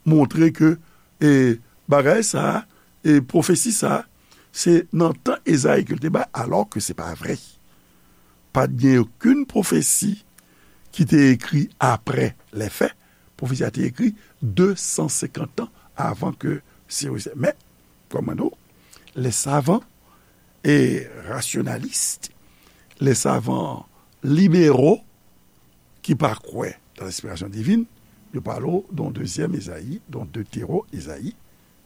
montre ke, e, bagay sa a, e, pwofesi sa a, se nan tan Ezayi ke l te bay, alò ke se pa vre. Pa t gen okenn pwofesi ki te ekri apre lè fè. Pwofesi a te ekri de san senkant an avan ke Sirus. Men, kòm mwen di w, les savants et rationalistes, les savants libéraux ki pa kwè nan lenspirasyon divin, yo pale w de yon dezyèm Ezayi, de yon deutéro-Esaïe,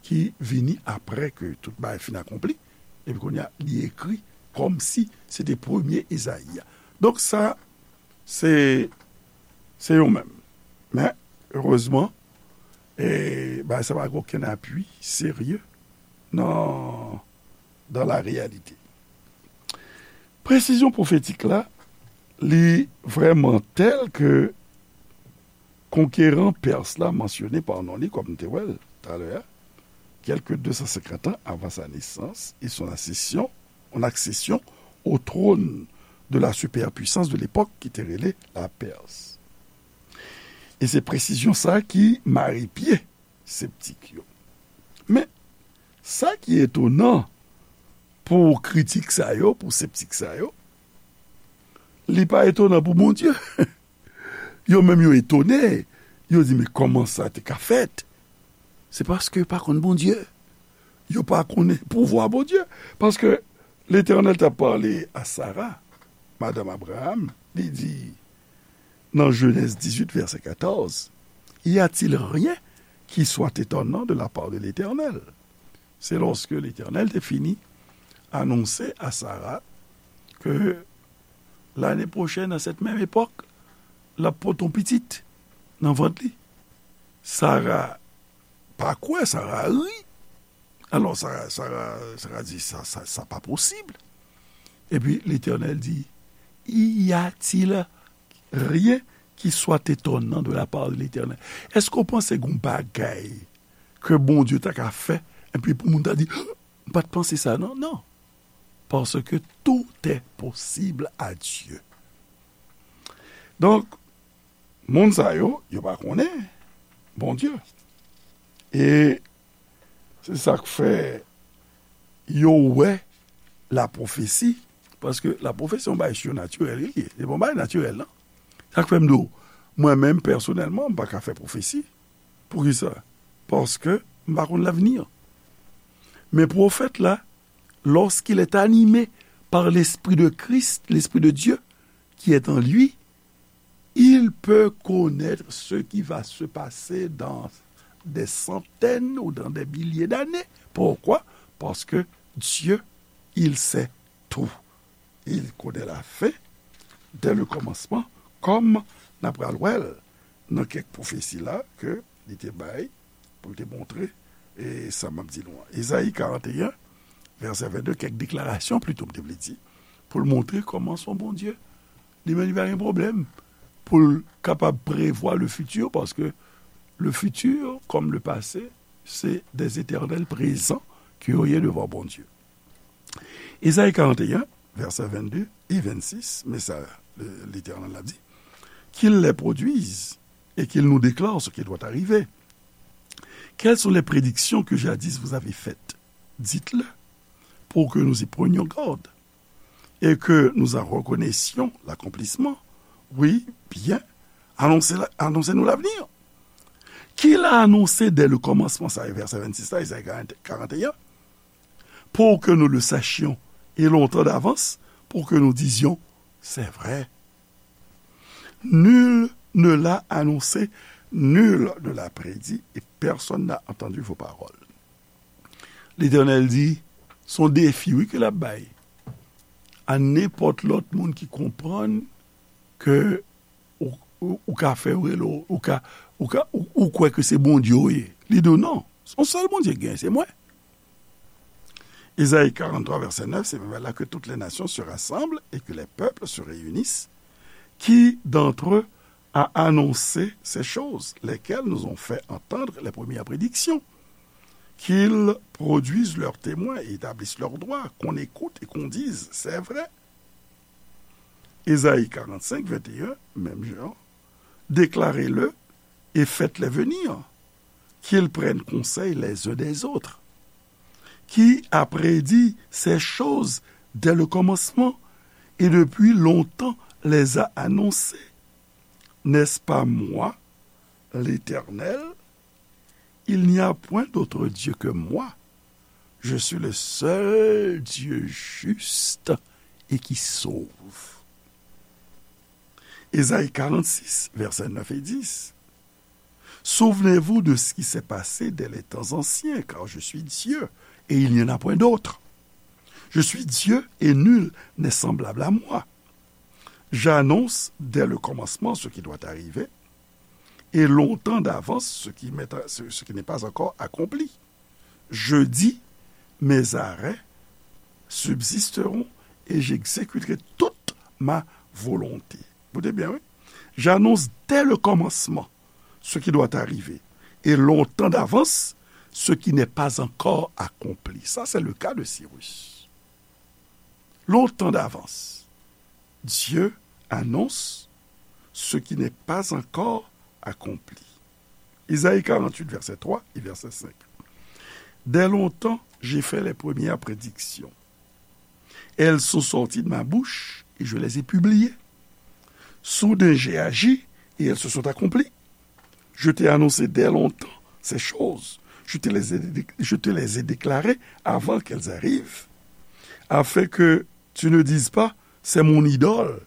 ki vini apre ke tout bagay fin akonpli, epi kounye a, li ekri kòmsi se te premye Ezayi a. Donk sa, se, se yo menm. Men, erezman, e, bagay sa pa gen okenn apui serye nan, dans la réalité. Presizyon pwofetik la, li vrèman tèl ke konkeran pès la mansyone pa non li, kòm n te wè l talè a, quelque deux cent cinquante ans avant sa naissance et son accession, son accession au trône de la superpuissance de l'époque ki te rele la Perse. E se presizyon sa ki mare pye septik yo. Men, sa ki etonan pou kritik sa yo, pou septik sa yo, li pa etonan pou Bondye. Yo menm yo etone, yo di, "Men kòman sa te ka fèt?" Se paske yo pa konn Bondye. Yo pa konnen pouvwa Bondye. Paske Letènèl t ap pale a Sara, madanm Abraham, li di, nan Jenèz dizuit, vèsè katòz, "Y a-t-il rien qui soit étonnant de la part de l'Éternel?" Se lòske Letènèl te fini anonse a Sara ke lane pwochèn, nan sèt menm epòk, l ap pote yon pitit nan vant li. Sara pa kwè, Sara ri. Alò, Sara, Sara, Sara di, "Sa, sa, sa pa posib." Epi Letènèl di, "Y a-t-il rien qui soit étonnant de la part de l'Éternel?" Èske w panse gen yon bagay ke Bondye ta ka fè, epi pou moun ta di, "M pa t panse sa, non?" Non. Parce que tout est possible à Dieu. Donk, moun sa yo, yo pa konnen Bondye. E se sa k fè yo wè lapwofesi, paske lapwofesi se yon bagay sinatirèl li ye. Se pa yon bagay natirèl, non. Sa k fè m di w, mwen menm, pèsonèlman, m pa ka fè pwofesi. Poukisa? Paske m pa konn lavni. Men pwofèt la, lorsqu'il est animé par l'Esprit de Christ, l'Esprit de Dieu qui est en lui, il peut connaître ce qui va se passer dans des centaines ou dans des milliers d'années. Pourquoi? Parce que Dieu, il sait tout. Il connaît la fin dès le commencement, kòm n ap pral wè l nan kèk pwofesi la ke li te bay pou l te montre, e sa m ap di nou an. Ezayi karannteyen, vèsè vennde, kèk deklarasyon plito, m te vle di, pou l montre kòman se yon Bondye. Li menm, li pa gen pwoblèm pou l kapab prevwa le futur, paske le futur, comme le passé, c'est des éternels présents que yo ye devan Bondye. Ezayi karannteyen, vèsè vennde e vennsis, men sa, le, Letènèl la di, qu'il les produise et qu'il nous déclare ce qui doit arriver. Quelles sont les prédictions que jadis vous avez faites? Dites-le, pour que nous y prenions garde et que nous en reconnaissions l'accomplissement. Oui, bien, annoncez la, annoncez-nous l'avenir. Qu'il a annoncé dès le commencement, sa e vèsè vennsis la, Ezayi karannteyen, pour que nous le sachions, et longtemps d'avance, pour que nous disions, c'est vrai. Nul ne l'a annoncé, nul ne l'a prédit, et personne n'a entendu vos paroles. Letènèl di, se yon defi, wi, ke l ap bay a nenpòt lòt moun ki konprann ke ou, ou, ou ka fè yo rele w, ou ka, ou ka, ou, ou kwè ke se Bondye w ye. Li di w, "Non, se yon sèl Bondye k genyen, se mwen." Ezayi karanntrwa, vèsè nèf, c'est vers là que toutes les nations se rassemblent et que les peuples se réunissent. Qui d'entre eux a annoncé ces choses, lesquelles nous ont fait entendre les premières prédictions? Qu'ils produisent leurs témoins et établissent leurs droits, qu'on écoute et qu'on dise, c'est vrai. Ezayi karannsenk, venteyen, menm jan, déclarez-le et faites-les venir, qu'ils prennent conseil les uns des autres. Qui a prédit ces choses dès le commencement et depuis longtemps les a annoncées? N'est-ce pas moi, l'Éternel? Il n'y a point d'autre Dieu que moi. Je suis le seul Dieu juste et qui sauve. Ezayi karannsis, vèsè nèf e dis. Souvenez-vous de ce qui s'est passé dès les temps anciens, car je suis Dieu et il n'y en a point d'autre. Je suis Dieu et nul n'est semblable à moi. J'annonce dès le commencement ce qui doit arriver, et longtemps d'avance ce qui m'est, ce, ce qui n'est pas encore accompli. Je dis, mes arrêts subsisteront et j'exécuterai toute ma volonté. Écoutez bien, oui. J'annonce dès le commencement ce qui doit arriver, et longtemps d'avance ce qui n'est pas encore accompli. Ça, c'est le cas de Cyrus. Longtemps d'avance, Dieu annonce ce qui n'est pas encore accompli. Isaïe quarante-huit, verset trois et verset cinq. Dès longtemps, j'ai fait les premières prédictions. Elles sont sorties de ma bouche et je les ai publiées. Soudain, j'ai agi et elles se sont accomplies. Je t'ai annoncé dès longtemps ces choses. Je te les ai, je te les ai déclarées avant qu'elles arrivent, afin que tu ne dises pas, c'est mon idole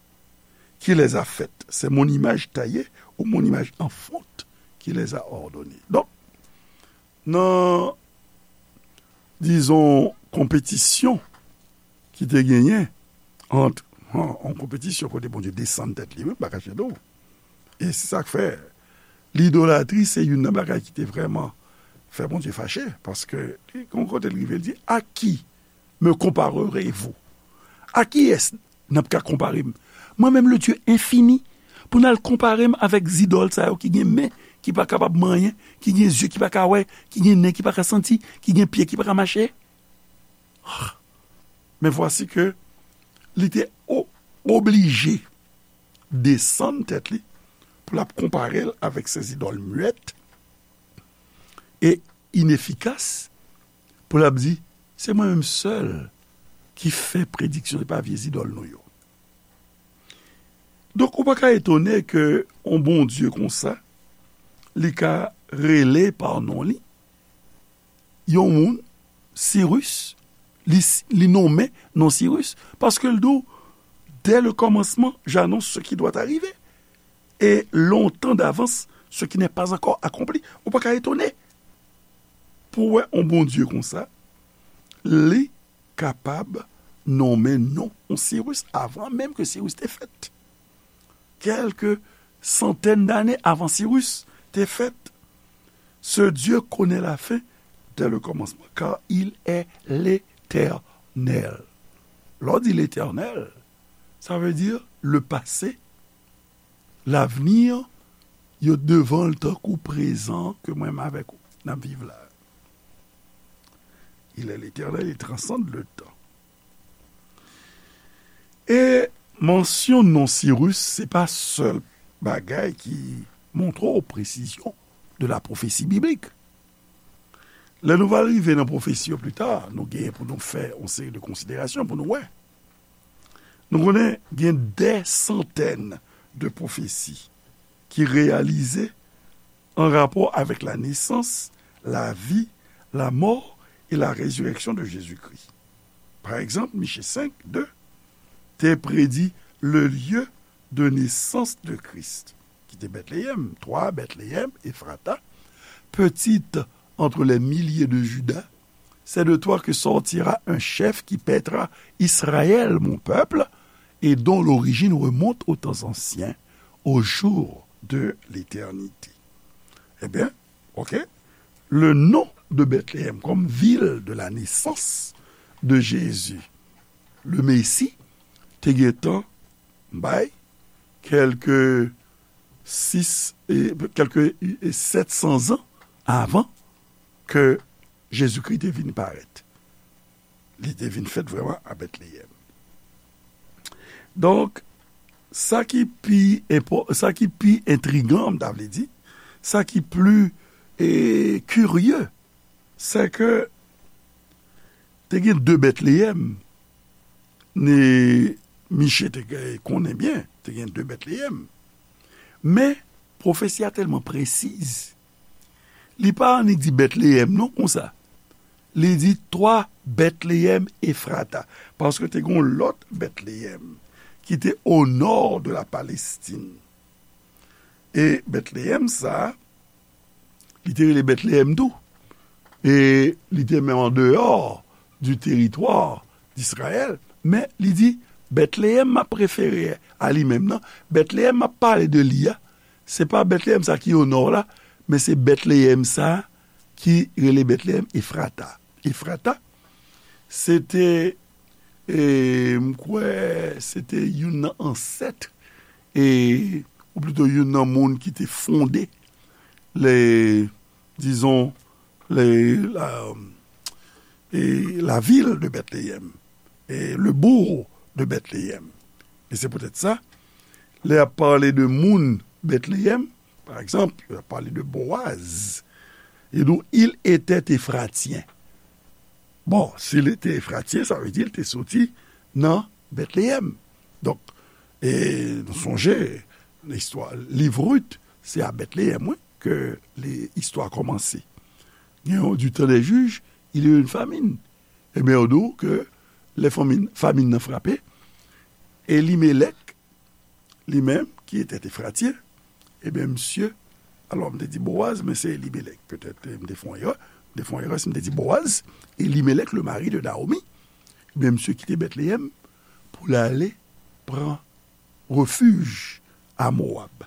qui les a faites, c'est mon image taillée ou mon image en fonte qui les a ordonnées. Donk, nan, dizon, konpetisyon ki te genyen ant, an, an konpetisyon kote Bondye desann tèt li, wi, m pa kache nou. E se sa k fè lidolatri se youn nan bagay ki te vrèman fè Bondye fache, paske li, yon kote l rive, l di, "À qui me comparerez-vous? À qui est-ce n ap ka konpare m? Mwen menm, le Dieu infini, pou n al konpare m avèk zidòl sa yo ki gen men ki pa kapab manyen, ki gen zye ki pa ka wè, ki gen nen ki pa ka santi, ki gen pye ki pa ka mache?" Men vwasi ke li te o-, oblije desann tèt li pou l ap konpare l avèk se zidòl mwèt e inefikas, pou l ap di, "Se mwen menm sèl ki fè prediksyon, se pa vye zidòl nou yo." Donk, ou pa ka etone ke yon Bondye konsa, li ka rele pa non li yon moun, Sirus, li, li nonmen non Sirus, paske l di w, "Dès le commencement, j'annonce ce qui doit arriver, et longtemps d'avance, ce qui n'est pas encore accompli." Ou pa ka etone pou w wè yon Bondye konsa, li kapab nonmen non yon Sirus avan menm ke Sirus te fèt. Quelques centaines d'années avant Sirus te fèt, ce Dieu connaît la fin dès le commencement, car il est l'Éternel. Lè w di l'Éternel, sa vle di le passé, l'avenir, yo devan l tankou prezan ke mwen menm avèk ou n ap viv la. Il est l'Éternel, il transcende le temps. E mansyon non Sirus, se pa sèl bagay ki montre w presizyon de la pwofesi biblik. Lè nou va rive nan pwofesi yo pli ta, nou genyen pou nou fè yon seri de konsiderasyon pou nou wè. Nou konnen gen dè santèn de pwofesi ki reyalize an rapò avèk la nesans, la vi, la mò e la rezirèksyon de Jezikri. Pa egzanp, Miche senk, de te predi le lieu de naissance de Christ, ki te Bètleyèm, toi, Bethléem Ephrata, petite entre les milliers de Juda, c'est de toi que sortira un chef qui paîtra Israël, mon peuple, et dont l'origine remonte aux temps anciens, aux jours de l'éternité. Ebyen, oke, le nom de Bethléem comme ville de la naissance de Jésus, le Messie, te gentan bay kèlke sis, e, kèlke, e, sèt san zan avan ke Jezikri te vin parèt. Li te vin fèt vrèman a Bètleyèm. Donk, sa ki pi enpò-, sa ki pi entrigan, m ta vle di, sa ki pli, e, kirye, se ke te gen de Bètleyèm, ni Miche te gen, konnen byen, te gen de Bètleyèm. Men, pwofesi a tèlman presiz. Li pa annik di Bètleyèm non konsa. Li di, toi, Bethléem Ephrata. Paske te gen yon lòt Bètleyèm ki te o nò de la Palestine. E Bètleyèm sa a, li te rele Bètleyèm tou. E li te menm an deyò du teritwa d'Izrayèl. Men li di, Bètleyèm m ap refere a li menm nan, Bètleyèm m ap pale de li a, se pa Bètleyèm sa ki o nò la, men se Bètleyèm sa ki rele Bètleyèm Efrata. Efrata, se te, e, m kwè, se te youn nan ansèt, e, ou plito youn nan moun ki te fonde le, dizon, le, la, e, la vil de Bètleyèm, e, le bourg de Bètleyèm. E se poutèt sa, lè y ap pale de moun Bètleyèm, Pa egzanp, yo pale de Boaz. Li di w, il était éphratien. Bon, si l te Efratyen, sa vle di l te soti nan Betleyèm. Donk, e nou sonje, listwa, liv Rit, se a Betleyèm, wi, ke li, istwa kòmanse. Gen yon du temps des juges, il y a eu une famine. Ebyen, yo di w ke lè famin, famin nan frape, Elimelèk, li menm, ki te Efratyen, ebyen, misye, alò, m te di Boaz, men se Elimelèk. Petèt, m te fè yon erè. M te fè yon erè si m te di Boaz, Elimelèk, le mari de Naomi, ebyen, misye kite Betleyèm pou l ale pran refij a Mowab.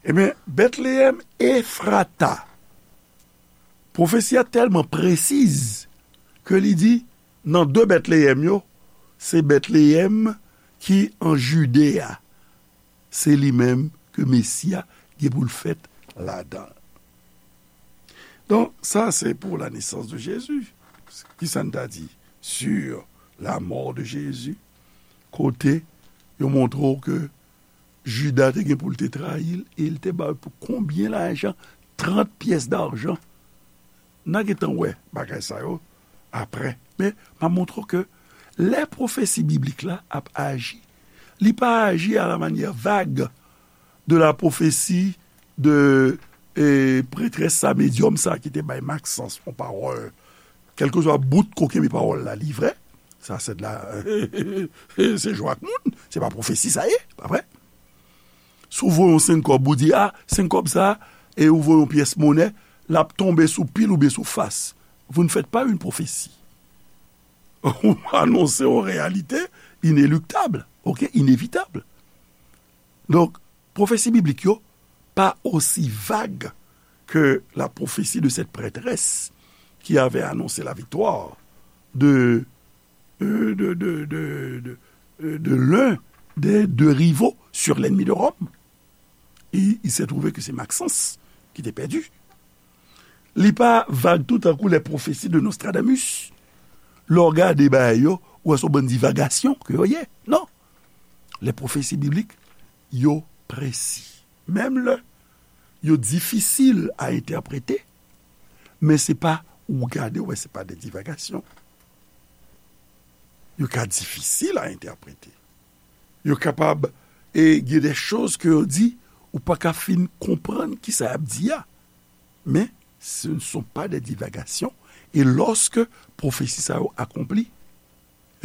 Ebyen, Betleyèm Efrata, pwofesi a tèlman presiz ke li di, nan de Betleyèm yo, se Betleyèm ki an Jide a, se li menm ke Mesi a gen pou l fèt ladan l. Donk, sa se pour la naissance de Jésus. Kisa n ta di sur la mort de Jésus? Kote yo montre w ke Jida te gen pou l te trayi l, e l te ba l pou konbyen lajan? Trant pyès dajan. N a gentan wè bagay sa yo apre. Men, m ap montre w ke lè pwofesi biblik la ap aji, li pa aji à la manière vague de la prophétie de, e, prêtresse sa, medyòm sa ki te bay Maxence yon pawòl. Kèlkeswa bout kokenn pawòl la, li vrè. Sa se de la, se jwe ak moun. Se pa pwofesi sa ye, pa vre? Si w voye yon senk kòb, ou di, a, senk kòb sa, e ou voye yon pyès monè, l ap tonbe sou pil oubyen sou fas. Vous ne faites pas une prophétie. Ou anonse yon reyalite ineliktab, ok, inevitab. Donk, pwofesi biblik yo pa osi vag ke la prophétie de cette prêtresse qui avait annoncé la victoire de, euh, de, de, de, de, euh, de l'un des deux rivaux sur l'ennemi de Rome. Et il s'est trouvé que c'est Maxence qui était perdu. Li pa vag tou tankou les prophéties de Nostradamus. Lè w gade bagay yo, ou wè se yon bann divagasyon ke yo ye. Non. Les prophéties bibliques, yo presi. Menm lè yo difisil a entèprete, men se pa, ou gade, ou wè, se pa de divagasyon. Yo ka difisil a entèprete. Yo kapab, e gen de choz ke yo di, ou pa ka fin konprann kisa y ap di a. Men, ce ne sont pas des divagations. E lòske pwofesi sa yo akonpli,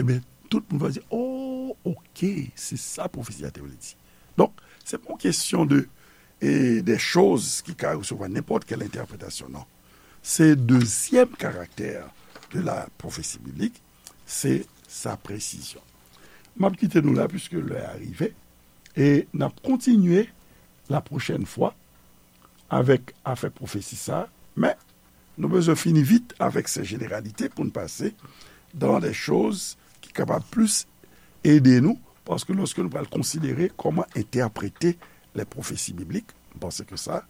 ebyen, tout moun va di, oh, ok, se sa pwofesi a te vle di. Donk, se pa yon kesyon de, e, de choz ki ka resevwa nenpòt kèl entèpretasyon, non. Se dezyèm karaktè de la pwofesi biblik, se sa presizyon. M ap kite nou la, piske lè a rive, e n ap kontinye la pwochèn fwa avèk afè pwofesi sa, men nou bezwen fini vit avèk se jeneralite pou n pase dans des choses ki kapab plis ede nou, paske lòske nou pral konsidere kòman entèprete les prophéties bibliques, m panse ke sa,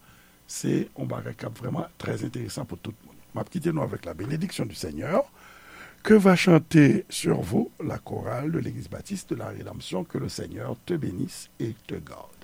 se yon bagay k ap vrèman trè enteresan pou tout moun. M ap kite nou avèk la bénédiction du Seigneur. Que va chanter sur vous la chorale de l'Église baptiste de la Rédemption. Que le Seigneur te bénisse et te garde.